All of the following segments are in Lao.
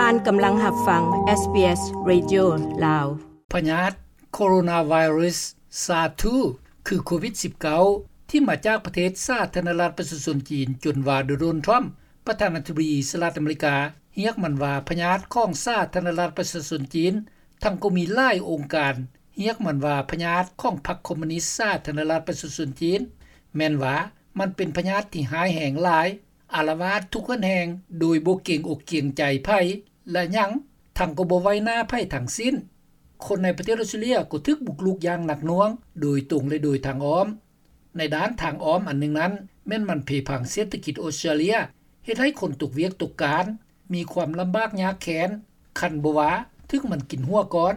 ທ່ານກຳລັງຮັບຟັງ ເອສບີເອສ ເຣດິໂອ ລາວ. ພະຍາດໂຄໂຣນາໄວຣັສ ຊາສ ສາມ ຄືໂຄວິດສິບເກົ້າ ທີ່ມາຈາກປະເທດສາທາລະນະລັດປະຊາຊົນຈີນ ຈົນວ່າໂດນັລ ທຣຳ ປະທານາທິບໍດີສະຫະລັດອາເມລິກາ ຮຽກມັນວ່າພະຍາດຂອງສາທາລະນະລັດປະຊາຊົນຈີນ, ທັງກໍມີຫຼາຍອົງການຮຽກມັນວ່າພະຍາດຂອງພັກຄອມມູນິດສາທາລະນະລັດປະຊາຊົນຈີນ, ແມ່ນວ່າມັນເປັນພະຍາດທີ່ຮ້າຍແຮງຫຼາຍ, ອາລະວາດທຸກເຮືອນແຮ່ງໂດຍບໍ່ເກງອົກເກງໃຈໃຜ ແລະ ຫຍັງ ທັງກໍບໍ່ໄຫວ້ໜ້າໃຜທັງສິ້ນ. ຄົນໃນປະເທດອອສເຕຣເລຍກໍຖືກບຸກລຸກຢ່າງໜັກໜ່ວງ ໂດຍຕົງ ແລະ ໂດຍທາງອ້ອມ. ໃນດ້ານທາງອ້ອມອັນໜຶ່ງນັ້ນ ແມ່ນມັນເພພັງເສດຖະກິດອອສເຕຣເລຍ, ເຮັດໃຫ້ຄົນຕົກວຽກຕົກການ, ມີຄວາມລຳບາກຍາກແຄ້ນ, ຄັນບໍ່ວ່າ ຖືກມັນກິນຫົວກ່ອນ.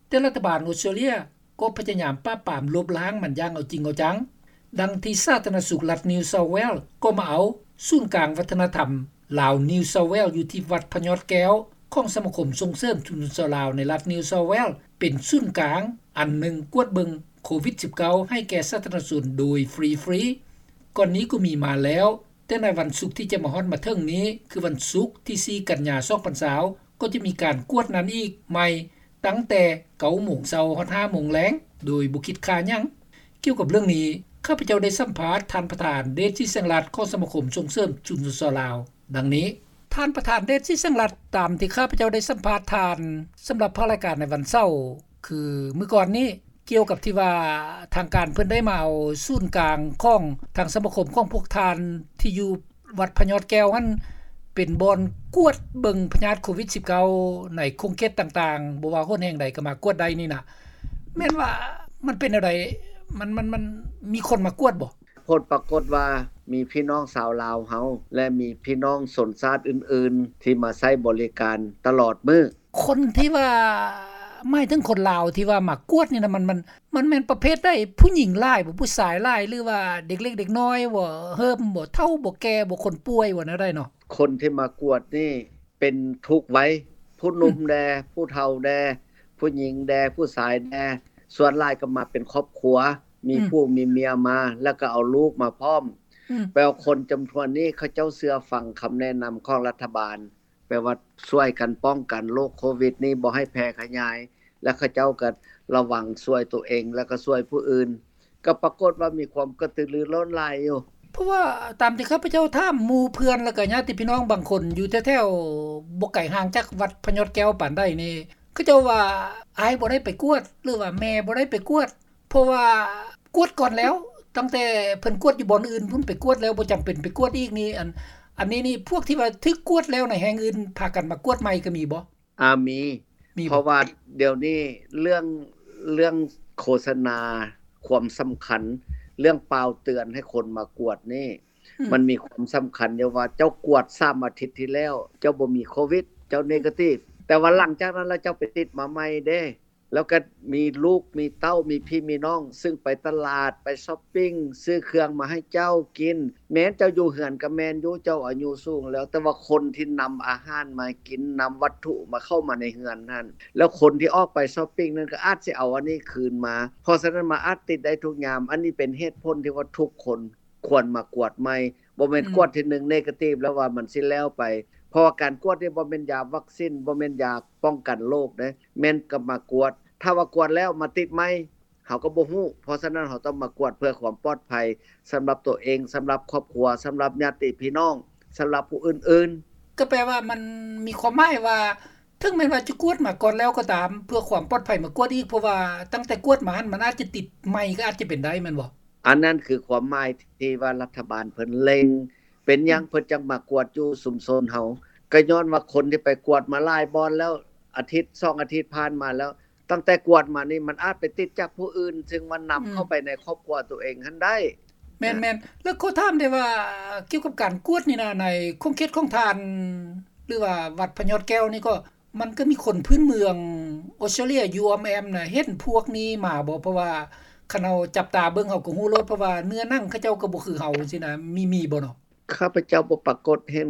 ແຕ່ລັດຖະບານອອສເຕຣເລຍກໍພະຍາຍາມປາບປາມລົບລ້າງມັນຢ່າງເອົາຈິງເອົາຈັງ. ດັ່ງທີ່ສາທາລະນະສຸກລັດ New South Wales ກໍມາເອົາສູນກາງວັດທະນະທຳລາວ New South Wales ຢູ່ທີ່ວັດພະຍອດແກ້ວ ຂອງສະມາຄົມສົ່ງເສີມຊຸມຊົນຊາວລາວໃນລັດ New South Wales ເປັນສູນກາງອັນໜຶ່ງກວດເບິ່ງໂຄວິດສິບເກົ້າ ໃຫ້ແກ່ສາທາລະນະຊົນໂດຍຟຣີໆ. ກ່ອນນີ້ກໍມີມາແລ້ວ, ແຕ່ໃນວັນສຸກທີ່ຈະມາຮອດມາເຖິງນີ້ ຄືວັນສຸກທີສີ່ກັນຍາສອງພັນຊາວ ກໍຈະມີການກວດນັ້ນອີກໃໝ່ ຕັ້ງແຕ່ເກົ້າໂມງເຊົ້າຮອດຫ້າໂມງແລງ ໂດຍບໍ່ຄິດຄ່າຫຍັງ. ກ່ຽວກັບເລື່ອງນີ້ ຂ້າພະເຈົ້າໄດ້ສຳພາດທ່ານປະທານ ເດດ ສີແສງລັດ ຂອງສະມາຄົມສົ່ງເສີມຊຸມຊົນຊາວລາວ ດັ່ງນີ້. ທ່ານປະທານ ເດດ ສີແສງລັດ, ຕາມທີ່ຂ້າພະເຈົ້າໄດ້ສຳພາດທ່ານ ສຳລັບພາກລາຍການໃນວັນເສົາ ຄືມື້ກ່ອນນີ້ ກ່ຽວກັບທີ່ວ່າທາງການເພິ່ນໄດ້ມາເອົາສູນກາງຂອງທາງສະມາຄົມຂອງພວກທ່ານທີ່ຢູ່ວັດພະຍອດແກ້ວຫັ້ນ ເປັນບ່ອນກວດເບິ່ງພະຍາດໂຄວິດສິບເກົ້າ ໃນຂົງເຂດຕ່າງໆ, ບໍ່ວ່າຫົນແຫ່ງໃດກໍມາກວດໄດ້ນີ້ນະ, ແມ່ນວ່າມັນເປັນແນວໃດ? ມັນ ມັນ ມັນມີຄົນມາກວດບໍ່? ຜົນປາກົດວ່າມີພີ່ນ້ອງຊາວລາວເຮົາ ແລະ ມີພີ່ນ້ອງຊົນຊາດອື່ນໆ ທີ່ມາໃຊ້ບໍລິການຕະຫຼອດມື້. ຄົນທີ່ວ່າ ໝາຍເຖິງຄົນລາວທີ່ວ່າມາກວດນີ້ນະ ມັນ ມັນ ມັນແມ່ນປະເພດໃດ? ຜູ້ຍິງຫຼາຍບໍ່? ຜູ້ຊາຍຫຼາຍ ຫຼືວ່າເດັກເລັກເດັກນ້ອຍບໍ່? ເຮີ້ມບໍ່? ເຖົ້າບໍ່? ແກ່ບໍ່? ຄົນປ່ວຍບໍ່? ແນວໃດເນາະ? ຄົນທີ່ມາກວດນີ້ເປັນທຸກໄວ, ຜູ້ໜຸ່ມແດ່, ອືມ ຜູ້ເຖົ້າແດ່, ຜູ້ຍິງແດ່, ຜູ້ຊາຍແດ່, ສ່ວນຫຼາຍກໍມາເປັນຄອບຄົວ, ມີ ອືມ ຜູ້ມີເມຍມາ ແລ້ວກໍເອົາລູກມາພ້ອມ. ອືມ ແປວ່າຄົນຈຳນວນນີ້ເຂົາເຈົ້າເຊື່ອຟັງຄຳແນະນຳຂອງລັດຖະບານ. ແປວ່າຊ່ວຍກັນປ້ອງກັນໂລກໂຄວິດນີ້ບໍ່ໃຫ້ແຜ່ຂະຫຍາຍ ແລະ ເຂົາເຈົ້າກໍລະວັງຊ່ວຍຕົວເອງ ແລະ ກໍຊ່ວຍຜູ້ອື່ນ, ກໍປາກົດວ່າມີຄວາມກະຕືລືລົ້ນຫຼາຍຢູ່. ເພາະວ່າຕາມທີ່ຂ້າພະເຈົ້າຖາມໝູ່ເພື່ອນ ແລ້ວກໍຍາດຕິພີ່ນ້ອງບາງຄົນຢູ່ແຖວໆ ບໍ່ໄກຫ່າງຈາກວັດພະຍອດແກ້ວປານໃດນີ້ ເຂົາເຈົ້າວ່າອ້າຍບໍ່ໄດ້ໄປກວດ ຫຼືວ່າແມ່ບໍ່ໄດ້ໄປກວດ ເພາະວ່າກວດກ່ອນແລ້ວ, ຕັ້ງແຕ່ເພິ່ນກວດຢູ່ບ່ອນອື່ນພຸ້ນ ໄປກວດແລ້ວ ບໍ່ຈຳເປັນໄປກວດອີກນີ້. ອັນ ອັນນີ້ນີ້ ພວກທີ່ວ່າຖືກກວດແລ້ວໃນແຫ່ງອື່ນ ພາກັນມາກວດໃໝ່ກໍມີບໍ່? ອາ ມີ ມີບໍ່? ເພາະວ່າດຽວນີ້ເລື່ອງ ເລື່ອງໂຄສະນາຄວາມສຳຄັນ ເລື່ອງປ່າວເຕືອນໃຫ້ຄົນມາກວດນີ້ ອືມ ມັນມີຄວາມສຳຄັນຢູ່ວ່າ ເຈົ້າກວດສາມອາທິດທີ່ແລ້ວ ເຈົ້າບໍ່ມີໂຄວິດ ເຈົ້າເນກາຕິບ ແຕ່ວ່າຫຼັງຈາກນັ້ນແລ້ວ ເຈົ້າໄປຕິດມາໃໝ່ເດ້. ແລ້ວກໍມີລູກມີເຕົ້າ ມີພີ່ມີນ້ອງ ຊຶ່ງໄປຕະຫຼາດ ໄປຊັອບປິງ ຊື້ເຄື່ອງມາໃຫ້ເຈົ້າກິນ. ແມ່ນເຈົ້າຢູ່ເຮືອນກໍແມ່ນຢູ່ ເຈົ້າອາຍຸສູງແລ້ວ, ແຕ່ວ່າຄົນທີ່ນຳອາຫານມາໃຫ້ກິນ, ນຳວັດຖຸມາເຂົ້າມາໃນເຮືອນຫັ້ນ, ແລ້ວຄົນທີ່ອອກໄປຊັອບປິງນັ້ນກໍອາດຊິເອົາອັນນີ້ຄືນມາ. ເພາະສະນັ້ນ ມັນອາດຕິດໄດ້ທຸກຍາມ. ອັນນີ້ເປັນເຫດຜົນທີ່ວ່າທຸກຄົນ ຄວນມາກວດໃໝ່, ບໍ່ແມ່ນ ອືມ ກວດທີໜຶ່ງເນກາຕິບແລ້ວວ່າມັນຊິແລ້ວໄປ. ເພາະວ່າການກວດນີ້ບໍ່ແມ່ນຢາວັກຊິນ, ບໍ່ແມ່ນຢາປ້ອງກັນໂລກເດ້, ແມ່ນກໍມາກວດ. ຖ້າວ່າກວດແລ້ວມາຕິດໃໝ່, ເຮົາກໍບໍ່ຮູ້. ເພາະສະນັ້ນ ເຮົາຕ້ອງມາກວດເພື່ອຄວາມປອດໄພສຳລັບຕົວເອງ, ສຳລັບຄອບຄົວ, ສຳລັບຍາດຕິພີ່ນ້ອງ, ສຳລັບຜູ້ອື່ນໆ. ກໍແປວ່າມັນມີຄວາມໝາຍວ່າ ເຖິງແມ່ນວ່າຈະກວດມາກ່ອນແລ້ວກໍຕາມ ເພື່ອຄວາມປອດໄພມາກວດອີກ, ເພາະວ່າຕັ້ງແຕ່ກວດມາຫັ້ນ ມັນອາດຈະຕິດໃໝ່ກໍອາດຈະເປັນໄດ້ ແມ່ນບໍ່? ອັນນັ້ນຄືຄວາມໝາຍທີ່ວ່າລັດຖະບານເພິ່ນເລັ່ງ. ເປັນຫຍັງ ອືມ ເພິ່ນຈັ່ງມາກວດຢູ່ຊຸມຊົນເຮົາ? ກໍຍ້ອນວ່າຄົນທີ່ໄປກວດມາຫຼາຍບ່ອນແລ້ວ, ອາທິດສອງອາທິດຜ່ານມາແລ້ວ, ຕັ້ງແຕ່ກວດມານີ້ ມັນອາດໄປຕິດຈາກຜູ້ອື່ນ ຊຶ່ງວ່ານຳ ອືມ ເຂົ້າໄປໃນຄອບຄົວຕົວເອງຫັ້ນໄດ້. ແມ່ນໆ ແລ້ວຂໍຖາມໄດ້ວ່າ ກ່ຽວກັບການກວດນີ້ນະ ໃນຂົງເຂດຂອງທ່ານ ຫຼືວ່າວັດພະຍອດແກ້ວນີ້ກໍ ມັນກໍມີຄົນພື້ນເມືອງອອສເຕຣເລຍຢູ່ອ້ອມແອ້ມນະ ເຫັນພວກນີ້ມາບໍ່? ເພາະວ່າຄັນເຮົາຈັບຕາເບິ່ງ ເຮົາກໍຮູ້ໂລດ, ເພາະວ່າເນື້ອໜັງເຂົາເຈົ້າກໍບໍ່ຄືເຮົາຈັ່ງຊີ້ນະ. ມີ ມີບໍ່ເນາະ? ຂ້າພະເຈົ້າບໍ່ປາກົດເຫັນ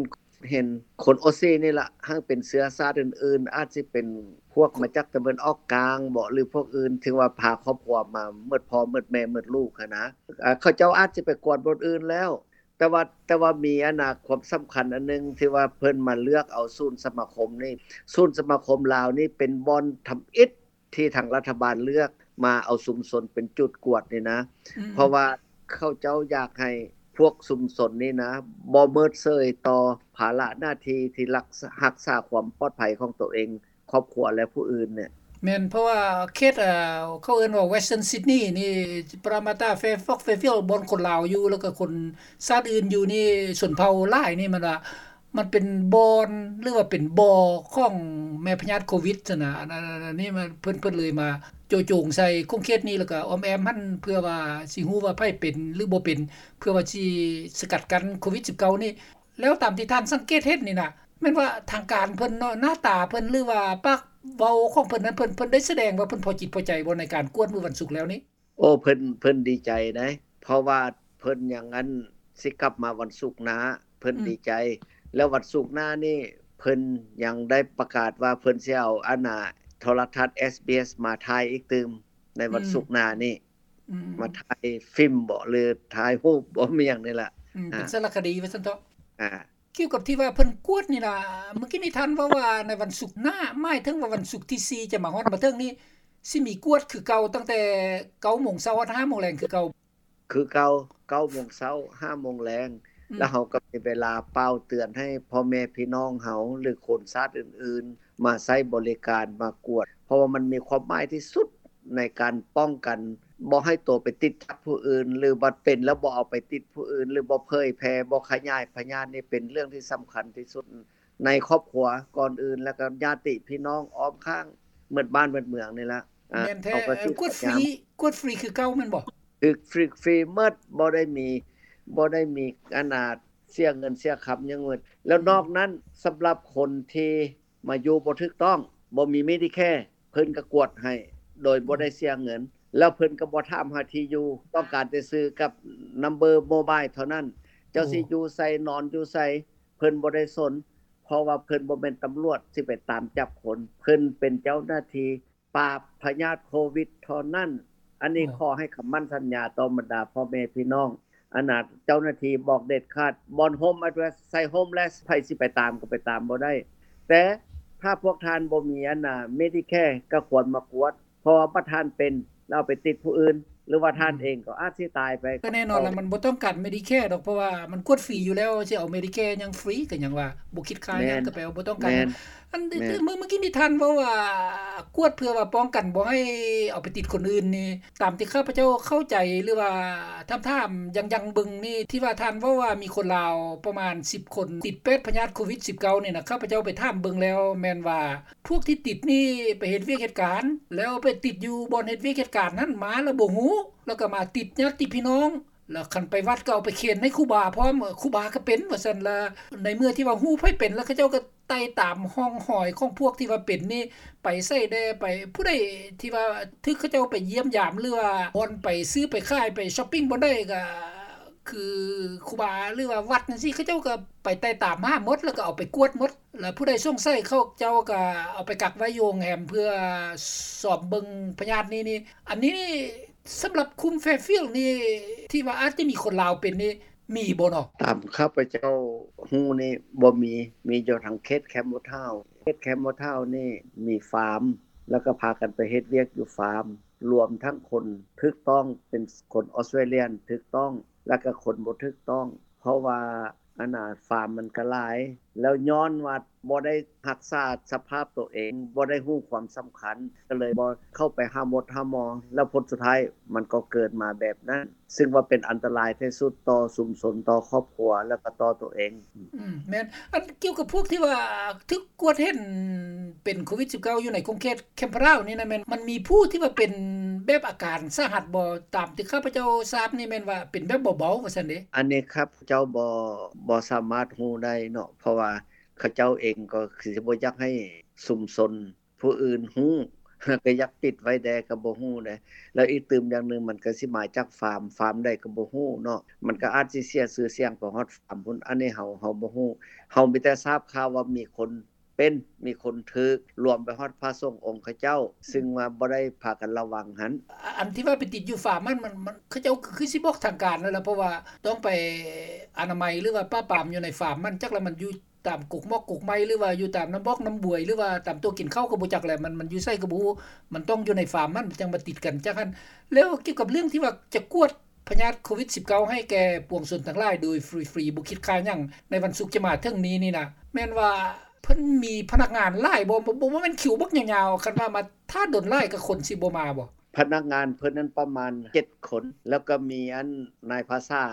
ເຫັນຄົນອອສຊີນີ້ລະ, ຫາກເປັນເຊື້ອຊາດອື່ນໆ, ອາດຊິເປັນພວກມາຈາກຕາເວັນອອກກາງບໍ ຫຼືພວກອື່ນ, ເຖິງວ່າພາຄອບຄົວມາໝົດພໍ່ໝົດແມ່ໝົດລູກຫັ້ນນະ. ເຂົາເຈົ້າອາດຊິໄປກວດບ່ອນອື່ນແລ້ວ. ແຕ່ວ່າ ແຕ່ວ່າມີອັນນ່າ ຄວາມສຳຄັນອັນໜຶ່ງ ທີ່ວ່າເພິ່ນມາເລືອກເອົາສູນສະມາຄົມນີ້ ສູນສະມາຄົມລາວນີ້ເປັນບ່ອນທຳອິດ ທີ່ທາງລັດຖະບານເລືອກມາເອົາຊຸມຊົນເປັນຈຸດກວດນີ້ນະ ອືມ ເພາະວ່າເຂົາເຈົ້າຢາກໃຫ້ພວກຊຸມຊົນນີ້ນະ ບໍ່ເມີດເສີຍຕໍ່ພາລະໜ້າທີ່ທີ່ລັກ ຮັກສາຄວາມປອດໄພຂອງຕົວເອງ, ຄອບຄົວ ແລະ ຜູ້ອື່ນເນຍ. ແມ່ນ ເພາະວ່າເຂດ ເອີ ເຂົາເອີ້ນວ່າ Western Sydney ນີ້ Parramatta, Fairfax, Fairfield ບ່ອນຄົນລາວຢູ່ ແລ້ວກໍຄົນຊາດອື່ນຢູ່ນີ້ ຊົນເຜົ່າຫຼາຍນີ້ ມັນວ່າ ມັນເປັນບ່ອນ ຫຼືວ່າເປັນບໍ່ຂອງແມ່ພະຍາດໂຄວິດຊັ້ນນະ. ອັນ ອັນ ອັນນີ້ມັນ ເພິ່ນ ເພິ່ນເລີຍມາໂຈະໂຈງໃສ່ຂົງເຂດນີ້ ແລ້ວກໍອ້ອມແອ້ມຫັ້ນ ເພື່ອວ່າຊິຮູ້ວ່າໃຜເປັນ ຫຼືບໍ່ເປັນ ເພື່ອວ່າຊິສະກັດກັ້ນໂຄວິດສິບເກົ້ານີ້. ແລ້ວຕາມທີ່ທ່ານສັງເກດເຫັນນີ້ນະ ແມ່ນວ່າທາງການເພິ່ນເນາະ ໜ້າຕາເພິ່ນ ຫຼືວ່າປາກເວົ້າຂອງເພິ່ນນັ້ນ ເພິ່ນ ເພິ່ນໄດ້ສະແດງວ່າເພິ່ນພໍຈິດພໍໃຈບໍ່ ໃນການກວດມື້ວັນສຸກແລ້ວນີ້? ໂອ້ ເພິ່ນ ເພິ່ນດີໃຈໃດ ເພາະວ່າເພິ່ນຍັງ ອັນ ຊິກັບມາວັນສຸກໜ້າ ເພິ່ນ ອືມ ດີໃຈ. ແລ້ວວັນສຸກໜ້ານີ້ ເພິ່ນຍັງໄດ້ປະກາດວ່າເພິ່ນຊິເອົາ ອັນນ່າ ໂທລະທັດ ເອສບີເອສ ມາຖ່າຍອີກຕື່ມ ໃນວັນ ອືມ ສຸກໜ້ານີ້ ອືມ ມາຖ່າຍຟິມບໍ ຫຼືຖ່າຍຮູບບໍ ມີຫຍັງນີ້ລະ ອືມ ອ່າ ເປັນສາລະຄະດີວ່າຊັ້ນເຖາະ. ອ່າ ກ່ຽວກັບທີ່ວ່າເພິ່ນກວດນີ້ລະ ເມື່ອກີ້ນີ້ທ່ານເວົ້າວ່າໃນວັນສຸກໜ້າ ໝາຍເຖິງວ່າວັນສຸກທີສີ່ຈະມາຮອດມາເຖິງນີ້ ຊິມີກວດຄືເກົ່າ ຕັ້ງແຕ່ເກົ້າໂມງເຊົ້າຮອດຫ້າໂມງແລງຄືເກົ່າ? ຄືເກົ່າ ເກົ້າໂມງເຊົ້າ ຫ້າໂມງແລງ ອືມ ແລ້ວເຮົາກໍມີເວລາປ່າວເຕືອນໃຫ້ພໍ່ແມ່ພີ່ນ້ອງເຮົາ ຫຼືຄົນຊາດອື່ນໆ ມາໃຊ້ບໍລິການ ມາກວດ ເພາະວ່າມັນມີຄວາມໝາຍທີ່ສຸດ ໃນການປ້ອງກັນບໍ່ໃຫ້ໂຕໄປຕິດຈາກຜູ້ອື່ນ ຫຼືວ່າເປັນແລ້ວບໍ່ເອົາໄປຕິດຜູ້ອື່ນ ຫຼືບໍ່ເຜີຍແຜ່ ບໍ່ຂະຫຍາຍພະຍາດນີ້ ເປັນເລື່ອງທີ່ສຳຄັນທີ່ສຸດໃນຄອບຄົວກ່ອນອື່ນ ແລ້ວກໍຍາດຕິພີ່ນ້ອງອ້ອມຂ້າງ ໝົດບ້ານໝົດເມືອງນີ້ລະ. ແມ່ນແທ້. ເອີ ກວດຟຣີ ກວດຟຣີຄືເກົ່າແມ່ນບໍ່? ຄືຟຣີ ຟຣີໝົດ ບໍ່ໄດ້ມີ ບໍ່ໄດ້ມີ ອັນນ່າ ເສຍເງິນເສຍຄຳຫຍັງໝົດ. ແລ້ວນອກນັ້ນ ສຳລັບຄົນທີ່ ມາຢູ່ບໍ່ຖືກຕ້ອງ ບໍ່ມີ Medicare ເພິ່ນກໍກວດໃຫ້ໂດຍບໍ່ໄດ້ເສຍເງິນ ແລ້ວເພິ່ນກໍບໍ່ຖາມຫາທີ່ຢູ່ ຕ້ອງການແຕ່ຊື່ກັບ number mobile ເທົ່ານັ້ນ. ເຈົ້າ ໂອ້ ຊິຢູ່ໃສ ນອນຢູ່ໃສ ເພິ່ນບໍ່ໄດ້ສົນ ເພາະວ່າເພິ່ນບໍ່ແມ່ນຕຳຫຼວດຊິໄປຕາມຈັບຄົນ ເພິ່ນເປັນເຈົ້າໜ້າທີ່ປາບພະຍາດໂຄວິດເທົ່ານັ້ນ. ອັນນີ້ ໂອ້ ຂໍໃຫ້ຄຳໝັ້ນສັນຍາຕໍ່ບັນດາພໍ່ແມ່ພີ່ນ້ອງ ອັນນ່າ ເຈົ້າໜ້າທີ່ບອກເດັດຂາດ ບ່ອນ home address ໃສ່ homeless ໃຜຊິໄປຕາມກໍໄປຕາມບໍ່ໄດ້. ແຕ່ຖ້າພວກທ່ານບໍ່ມີ ອັນນ່າ Medicare ກໍຄວນມາກວດ ເພາະວ່າບັດທ່ານເປັນ ແລ້ວເອົາໄປຕິດຜູ້ອື່ນ ຫຼືວ່າທ່ານເອງກໍອາດຊິຕາຍໄປ. ກໍແນ່ນອນລະ ມັນບໍ່ຕ້ອງການ Medicare ດອກ ເພາະວ່າມັນກວດຟຣີຢູ່ແລ້ວ ຊິເອົາ Medicare ຫຍັງຟຣີ ກໍຫຍັງວ່າບໍ່ຄິດຄ່າຫຍັງ ກໍແປວ່າບໍ່ຕ້ອງການຫຍັງ. ອັນ ເມື່ອ ເມື່ອກີ້ນີ້ທ່ານເວົ້າວ່າ ກວດເພື່ອວ່າປ້ອງກັນບໍ່ໃຫ້ເອົາໄປຕິດຄົນອື່ນນີ້ ຕາມທີ່ຂ້າພະເຈົ້າເຂົ້າໃຈ ຫຼືວ່າຖາມໆ ຍັງໆ ເບິ່ງນີ້ ທີ່ວ່າທ່ານເວົ້າວ່າມີຄົນລາວປະມານສິບຄົນ ຕິດແປດພະຍາດໂຄວິດສິບເກົ້ານີ້ນະ ຂ້າພະເຈົ້າໄປຖາມເບິ່ງແລ້ວ ແມ່ນວ່າພວກທີ່ຕິດນີ້ໄປເຮັດວຽກເຮັດການ ແລ້ວໄປຕິດຢູ່ບ່ອນເຮັດວຽກເຮັດການນັ້ນມາແລ້ວບໍ່ຮູ້ ແລ້ວກໍມາຕິດຍາດຕິພີ່ນ້ອງ ແລ້ວຄັນໄປວັດກໍເອົາໄປເຂັນໃຫ້ຄູບາພ້ອມ ຄູບາກໍເປັນວ່າຊັ້ນລະ. ໃນເມື່ອທີ່ວ່າຮູ້ໃຜເປັນແລ້ວ ເຂົາເຈົ້າກໍໄຕ່ຕາມຮ່ອງຮອຍຂອງພວກທີ່ວ່າເປັນນີ້ ໄປໃສແດ່ ໄປ ຜູ້ໃດທີ່ວ່າຖືກເຂົາເຈົ້າໄປຢ້ຽມຢາມ ຫຼືວ່າບ່ອນໄປຊື້ໄປຂາຍ ໄປຊັອບປິງບ່ອນໃດ ກໍຄືຄູບາ ຫຼືວ່າວັດຈັ່ງຊີ້ ເຂົາເຈົ້າກໍໄປໄຕ່ຕາມຫາໝົດ ແລ້ວກໍເອົາໄປກວດໝົດ. ແລ້ວຜູ້ໃດສົງໄສ ເຂົາເຈົ້າກໍເອົາໄປກັກໄວ້ຢູ່ໂຮງແຮມ ເພື່ອສອບເບິ່ງພະຍາດນີ້ນີ້. ອັນນີ້ ສຳລັບຄຸ້ມ Fairfield ນີ້ ທີ່ວ່າອາດຈະມີຄົນລາວເປັນນີ້ ມີບໍ່ເນາະ? ຕາມຂ້າພະເຈົ້າຮູ້ນີ້ບໍ່ມີ, ມີຢູ່ທາງເຂດ Campbelltown. ເຂດ Campbelltown ນີ້ມີຟາມ ແລ້ວກໍພາກັນໄປເຮັດວຽກຢູ່ຟາມ, ລວມທັງຄົນຖືກຕ້ອງ ເປັນຄົນອອສເຕຣເລຍນຖືກຕ້ອງ ແລ້ວກໍຄົນບໍ່ຖືກຕ້ອງ. ເພາະວ່າ ອັນນ່າ ຟາມມັນກໍຫຼາຍ ແລ້ວຍ້ອນວ່າບໍ່ໄດ້ຮັກສາສະພາບໂຕເອງ, ບໍ່ໄດ້ຮູ້ຄວາມສຳຄັນ, ກໍເລີຍບໍ່ເຂົ້າໄປຫາໝົດຫາໝໍ, ແລ້ວຜົນສຸດທ້າຍມັນກໍເກີດມາແບບນັ້ນ, ຊຶ່ງວ່າເປັນອັນຕະລາຍທີ່ສຸດຕໍ່ຊຸມຊົນ, ຕໍ່ຄອບຄົວ ແລ້ວກໍຕໍ່ໂຕເອງ. ອືມ ແມ່ນ. ອັນກ່ຽວກັບພວກທີ່ວ່າຖືກກວດເຫັນເປັນໂຄວິດສິບເກົ້າ ຢູ່ໃນຂົງເຂດ Campbelltown ນີ້ນະ ແມ່ນ ມັນມີຜູ້ທີ່ວ່າເປັນແບບອາການສາຫັດບໍ່? ຕາມທີ່ຂ້າພະເຈົ້າຊາບນີ້ແມ່ນວ່າເປັນແບບເບົາໆ ວ່າຊັ້ນເດ. ອັນນີ້ຂ້າພະເຈົ້າບໍ່ ບໍ່ສາມາດຮູ້ໄດ້ເນາະ, ເພາະວ່າເຂົາເຈົ້າເອງກໍຄືຊິບໍ່ຢາກໃຫ້ຊຸມຊົນຜູ້ອື່ນຮູ້, ກໍຢາກປິດໄວ້ແດ່ ກໍບໍ່ຮູ້ເດ. ແລ້ວອີກຕື່ມຢ່າງໜຶ່ງ ມັນກໍຊິມາຈາກຟາມ, ຟາມໃດກໍບໍ່ຮູ້ເນາະ, ມັນກໍອາດຊິເສຍຊື່ສຽງໄປຮອດຟາມພຸ້ນ, ອັນນີ້ເຮົາ ເຮົາບໍ່ຮູ້. ເຮົາມີແຕ່ຊາບຂ່າວວ່າມີຄົນ ປັນ ມີຄົນຖືກ ລວມໄປຮອດພະສົງອົງເຂົາເຈົ້າ ຊຶ່ງວ່າບໍ່ໄດ້ພາກັນລະວັງຫັ້ນ. ອັນທີ່ວ່າໄປຕິດຢູ່ຟາມຫັ້ນ ມັນ ມັນ ເຂົາເຈົ້າຄືຊິບອກທາງການແລ້ວລະ ເພາະວ່າຕ້ອງໄປອະນາໄມ ຫຼືວ່າປາບປາມຢູ່ໃນຟາມຫັ້ນ ຈັກລະມັນຢູ່ຕາມກົກໝອກກົກໄມ້ ຫຼືວ່າຢູ່ຕາມນ້ຳບອກນ້ຳບວຍ ຫຼືວ່າຕາມໂຕະກິນເຂົ້າກໍບໍ່ຈັກແຫຼະ ມັນ ມັນຢູ່ໃສກໍບໍ່ຮູ້ ມັນຕ້ອງຢູ່ໃນຟາມຫັ້ນຈັ່ງມາຕິດກັນ ຈັ່ງຫັ້ນ. ແລ້ວກ່ຽວກັບເລື່ອງທີ່ວ່າຈະກວດ ພະຍາດໂຄວິດສິບເກົ້າ ໃຫ້ແກ່ປວງຊົນທັງຫຼາຍໂດຍຟຣີໆ ບໍ່ຄິດຄ່າຫຍັງ ໃນວັນສຸກຈະມາເຖິງນີ້ນີ້ນະ ແມ່ນວ່າເພິ່ນມີພະນັກງານຫຼາຍບໍ່? ບໍ່ ບໍ່ແມ່ນຄິວບັກຍາວໆ ຄັນວ່າມາຖ້າດົນຫຼາຍ ກະຄົນຊິບໍ່ມາບໍ່? ພະນັກງານເພິ່ນນັ້ນປະມານເຈັດຄົນ ແລ້ວກະມີອັນນາຍພາສາ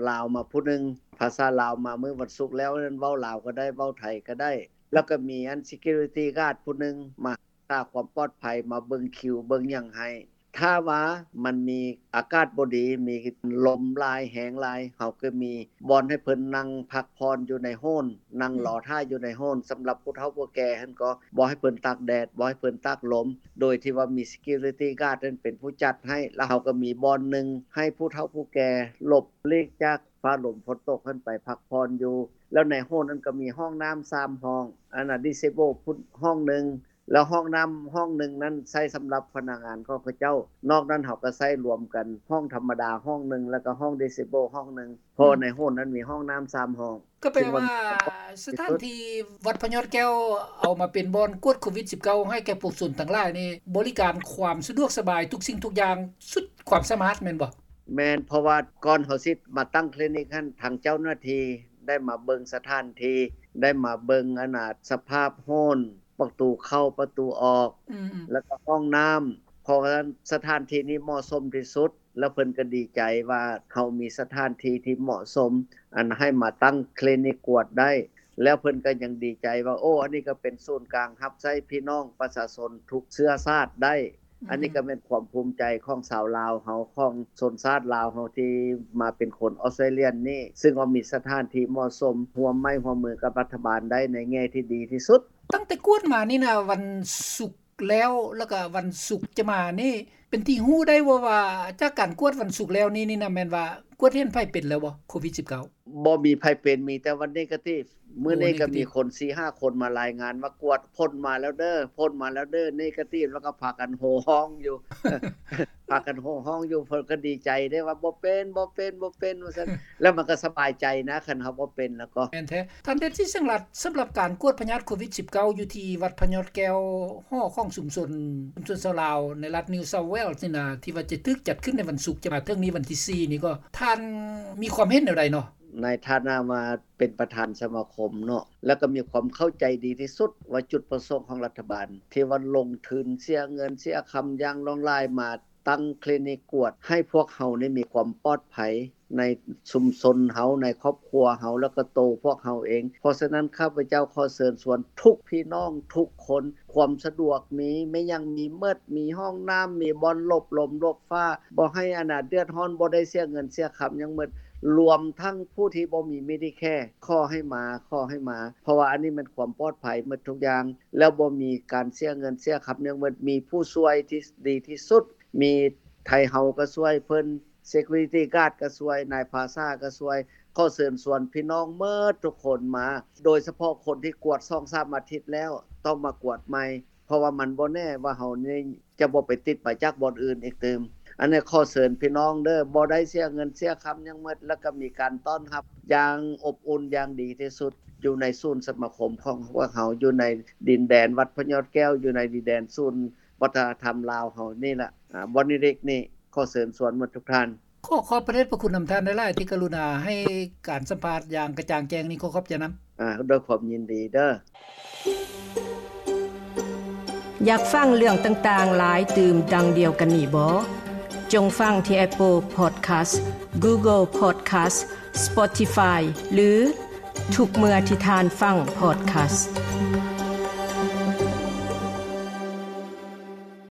ລາວມາຜູ້ໜຶ່ງ ພາສາລາວມາມື້ວັນສຸກແລ້ວນັ້ນ ເວົ້າລາວກະໄດ້ ເວົ້າໄທກະໄດ້ ແລ້ວກະມີອັນ security guard ຜູ້ໜຶ່ງມາ ຮັກສາຄວາມປອດໄພ ມາເບິ່ງຄິວເບິ່ງຫຍັງໃຫ້. ຖ້າວ່າມັນມີອາກາດບໍ່ດີ ມີລົມຫຼາຍ ແຮງຫຼາຍ ເຮົາກະມີບ່ອນໃຫ້ເພິ່ນນັ່ງພັກຜ່ອນຢູ່ໃນໂຮນ ນັ່ງລໍຖ້າຢູ່ໃນໂຮນ ສຳລັບຜູ້ເຖົ້າຜູ້ແກ່ຫັ້ນກໍບໍ່ໃຫ້ເພິ່ນຕາກແດດ ບໍ່ໃຫ້ເພິ່ນຕາກລົມ ໂດຍທີ່ວ່າມີ security guard ນັ້ນເປັນຜູ້ຈັດໃຫ້ ແລ້ວເຮົາກະມີບ່ອນໜຶ່ງໃຫ້ຜູ້ເຖົ້າຜູ້ແກ່ຫຼົບຫຼີກຈາກຟ້າລົມຝົນຕົກຫັ້ນໄປພັກຜ່ອນຢູ່ ແລ້ວໃນໂຮນນັ້ນກະມີຫ້ອງນ້ຳສາມຫ້ອງ ອັນນະ disable ພຸ້ນຫ້ອງໜຶ່ງ ແລ້ວຫ້ອງນ້ຳຫ້ອງໜຶ່ງນັ້ນໃຊ້ສຳລັບພະນັກງານຂອງເຂົາເຈົ້າ ນອກນັ້ນເຮົາກະໃຊ້ລວມກັນ ຫ້ອງທຳມະດາຫ້ອງໜຶ່ງ ແລ້ວກະຫ້ອງ disable ຫ້ອງໜຶ່ງ ເພາະໃນໂຮນນັ້ນມີຫ້ອງນ້ຳສາມຫ້ອງ. ກະແປວ່າສະຖານທີ່ວັດພະຍອດແກ້ວເອົາມາເປັນບ່ອນກວດໂຄວິດສິບເກົ້າ ໃຫ້ແກ່ປວງຊົນທັງຫຼາຍນີ້ ບໍລິການຄວາມສະດວກສະບາຍທຸກສິ່ງທຸກຢ່າງສຸດຄວາມສາມາດແມ່ນບໍ່? ແມ່ນ ເພາະວ່າກ່ອນເຮົາຊິມາຕັ້ງຄລີນິກຫັ້ນ ທາງເຈົ້າໜ້າທີ່ໄດ້ມາເບິ່ງສະຖານທີ່ ໄດ້ມາເບິ່ງອັນນະ ສະພາບໂຮນ ປະຕູເຂົ້າປະຕູອອກ ແລ້ວກະຫ້ອງນ້ຳ ເພາະວ່າສະຖານທີ່ນີ້ເໝາະສົມທີ່ສຸດ ແລ້ວເພິ່ນກະດີໃຈວ່າເຮົາມີສະຖານທີ່ທີ່ເໝາະສົມ ອັນໃຫ້ມາຕັ້ງຄລີນິກກວດໄດ້ ແລ້ວເພິ່ນກະຍັງດີໃຈວ່າ ໂອ້ ອັນນີ້ກະເປັນສູນກາງຮັບໃຊ້ພີ່ນ້ອງປະຊາຊົນທຸກເຊື້ອຊາດໄດ້. ອັນນີ້ກະແມ່ນຄວາມພູມໃຈຂອງຊາວລາວເຮົາ ຂອງຊົນຊາດລາວເຮົາທີ່ມາເປັນຄົນອອສເຕຣລຽນີ້ ຊຶ່ງວ່າມີສະຖານທີ່ເໝາະສົມ ຮ່ວມໄມ້ຮ່ວມມືກັບລັດຖະບານໄດ້ໃນແງ່ທີ່ດີທີ່ສຸດ. ຕັ້ງແຕ່ກວດມານີ້ນະ ວັນສຸກແລ້ວ ແລ້ວກະວັນສຸກຈະມານີ້ ເປັນທີ່ຮູ້ໄດ້ບໍ່ວ່າ ຈາກການກວດວັນສຸກແລ້ວນີ້ນີ້ນະ ແມ່ນວ່າກວດເຫັນໃຜເປັນແລ້ວບໍ່ ໂຄວິດສິບເກົ້າ? ບໍ່ມີໃຜເປັນ ມີແຕ່ວ່າເນກາຕິບ. ມື້ນີ້ກະມີຄົນສີ່ຫ້າຄົນມາລາຍງານວ່າກວດ ຜົນມາແລ້ວເດີ ຜົນມາແລ້ວເດີ ເນກາຕິບ ແລ້ວກະພາກັນໂຫ່ຮ້ອງຢູ່ ພາກັນໂຫ່ຮ້ອງຢູ່ ເພິ່ນກະດີໃຈເດ້ວ່າ ບໍ່ເປັນ ບໍ່ເປັນ ບໍ່ເປັນ ວ່າຊັ້ນ ແລ້ວມັນກະສະບາຍໃຈນະ ຄັນເຮົາບໍ່ເປັນແລ້ວກໍ. ແມ່ນແທ້ ທ່ານ ເດດຊິດ ແສງລັດ ສຳລັບການກວດພະຍາດໂຄວິດສິບເກົ້າ ຢູ່ທີ່ວັດພະຍອດແກ້ວ ຫໍຂອງຊຸມຊົນ ຊຸມຊົນຊາວລາວໃນລັດ New South Wales ນີ້ນະ ທີ່ວ່າຈະຖືກຈັດຂຶ້ນໃນວັນສຸກຈະມາເຖິງນີ້ ວັນທີສີ່ນີ້ ກໍທ່ານມີຄວາມເຫັນແນວໃດເນາະ? ໃນຖານະວ່າເປັນປະທານສະມາຄົມເນາະ ແລ້ວກະມີຄວາມເຂົ້າໃຈດີທີ່ສຸດວ່າຈຸດປະສົງຂອງລັດຖະບານ ທີ່ວ່າລົງທຶນເສຍເງິນເສຍຄຳຢ່າງຫຼວງຫຼາຍມາຕັ້ງຄລີນິກກວດ ໃຫ້ພວກເຮົານີ້ມີຄວາມປອດໄພໃນຊຸມຊົນເຮົາ ໃນຄອບຄົວເຮົາ ແລ້ວກະໂຕພວກເຮົາເອງ. ເພາະສະນັ້ນ ຂ້າພະເຈົ້າຂໍເຊີນຊວນທຸກພີ່ນ້ອງທຸກຄົນ ຄວາມສະດວກມີ ແມ່ນຫຍັງມີໝົດ ມີຫ້ອງນ້ຳ ມີບ່ອນຫຼົບລົມຫຼົບ ຟ້າ ບໍ່ໃຫ້ອັນນະເດືອດຮ້ອນ ບໍ່ໄດ້ເສຍເງິນເສຍຄຳຫຍັງໝົດ ລວມທັງຜູ້ທີ່ບໍ່ມີ Medicare ຂໍໃຫ້ມາ ຂໍໃຫ້ມາ ເພາະວ່າອັນນີ້ແມ່ນຄວາມປອດໄພໝົດທຸກຢ່າງ ແລ້ວບໍ່ມີການເສຍເງິນເສຍຄຳຫຍັງໝົດ ມີຜູ້ຊ່ວຍທີ່ດີທີ່ສຸດ ມີໄທເຮົາກະຊ່ວຍເພິ່ນ Security Guard ກະຊ່ວຍ ນາຍພາສາກະຊ່ວຍ ຂໍເຊີນຊວນພີ່ນ້ອງໝົດທຸກຄົນມາ ໂດຍສະເພາະຄົນທີ່ກວດສອງສາມອາທິດແລ້ວ ຕ້ອງມາກວດໃໝ່ ເພາະວ່າມັນບໍ່ແນ່ວ່າເຮົານີ້ຈະບໍ່ໄປຕິດມາຈາກບ່ອນອື່ນອີກຕື່ມ. ອັນນີ້ຂໍເຊີນພີ່ນ້ອງເດີ ບໍ່ໄດ້ເສຍເງິນເສຍຄຳຫຍັງໝົດ ແລ້ວກະມີການຕ້ອນຮັບຢ່າງອົບອຸ່ນຢ່າງດີທີ່ສຸດ ຢູ່ໃນສູນສະມາຄົມຂອງພວກເຮົາ ຢູ່ໃນດິນແດນວັດພະຍອດແກ້ວ ຢູ່ໃນດິນແດນສູນວັດທະນະທຳລາວເຮົານີ້ລະ ອາ ບ່ອນເລັກໆນີ້ ຂໍເຊີນຊວນໝົດທຸກທ່ານ. ຂໍຂອບພະເດດພະຄຸນນຳທ່ານຫຼາຍໆ ທີ່ກະລຸນາໃຫ້ການສຳພາດຢ່າງກະຈ່າງແຈ້ງນີ້ ຂໍຂອບໃຈນຳ. ອາ ດ້ວຍຄວາມຍິນດີເດີ. ຢາກຟັງເລື່ອງຕ່າງໆຫຼາຍຕື່ມດັ່ງດຽວກັນນີ້ບໍ? ຈົ່ງຟັງທີ່ Apple Podcast, Google Podcast, Spotify ຫຼື ທຸກເມື່ອທີ່ທ່ານຟັງ Podcast.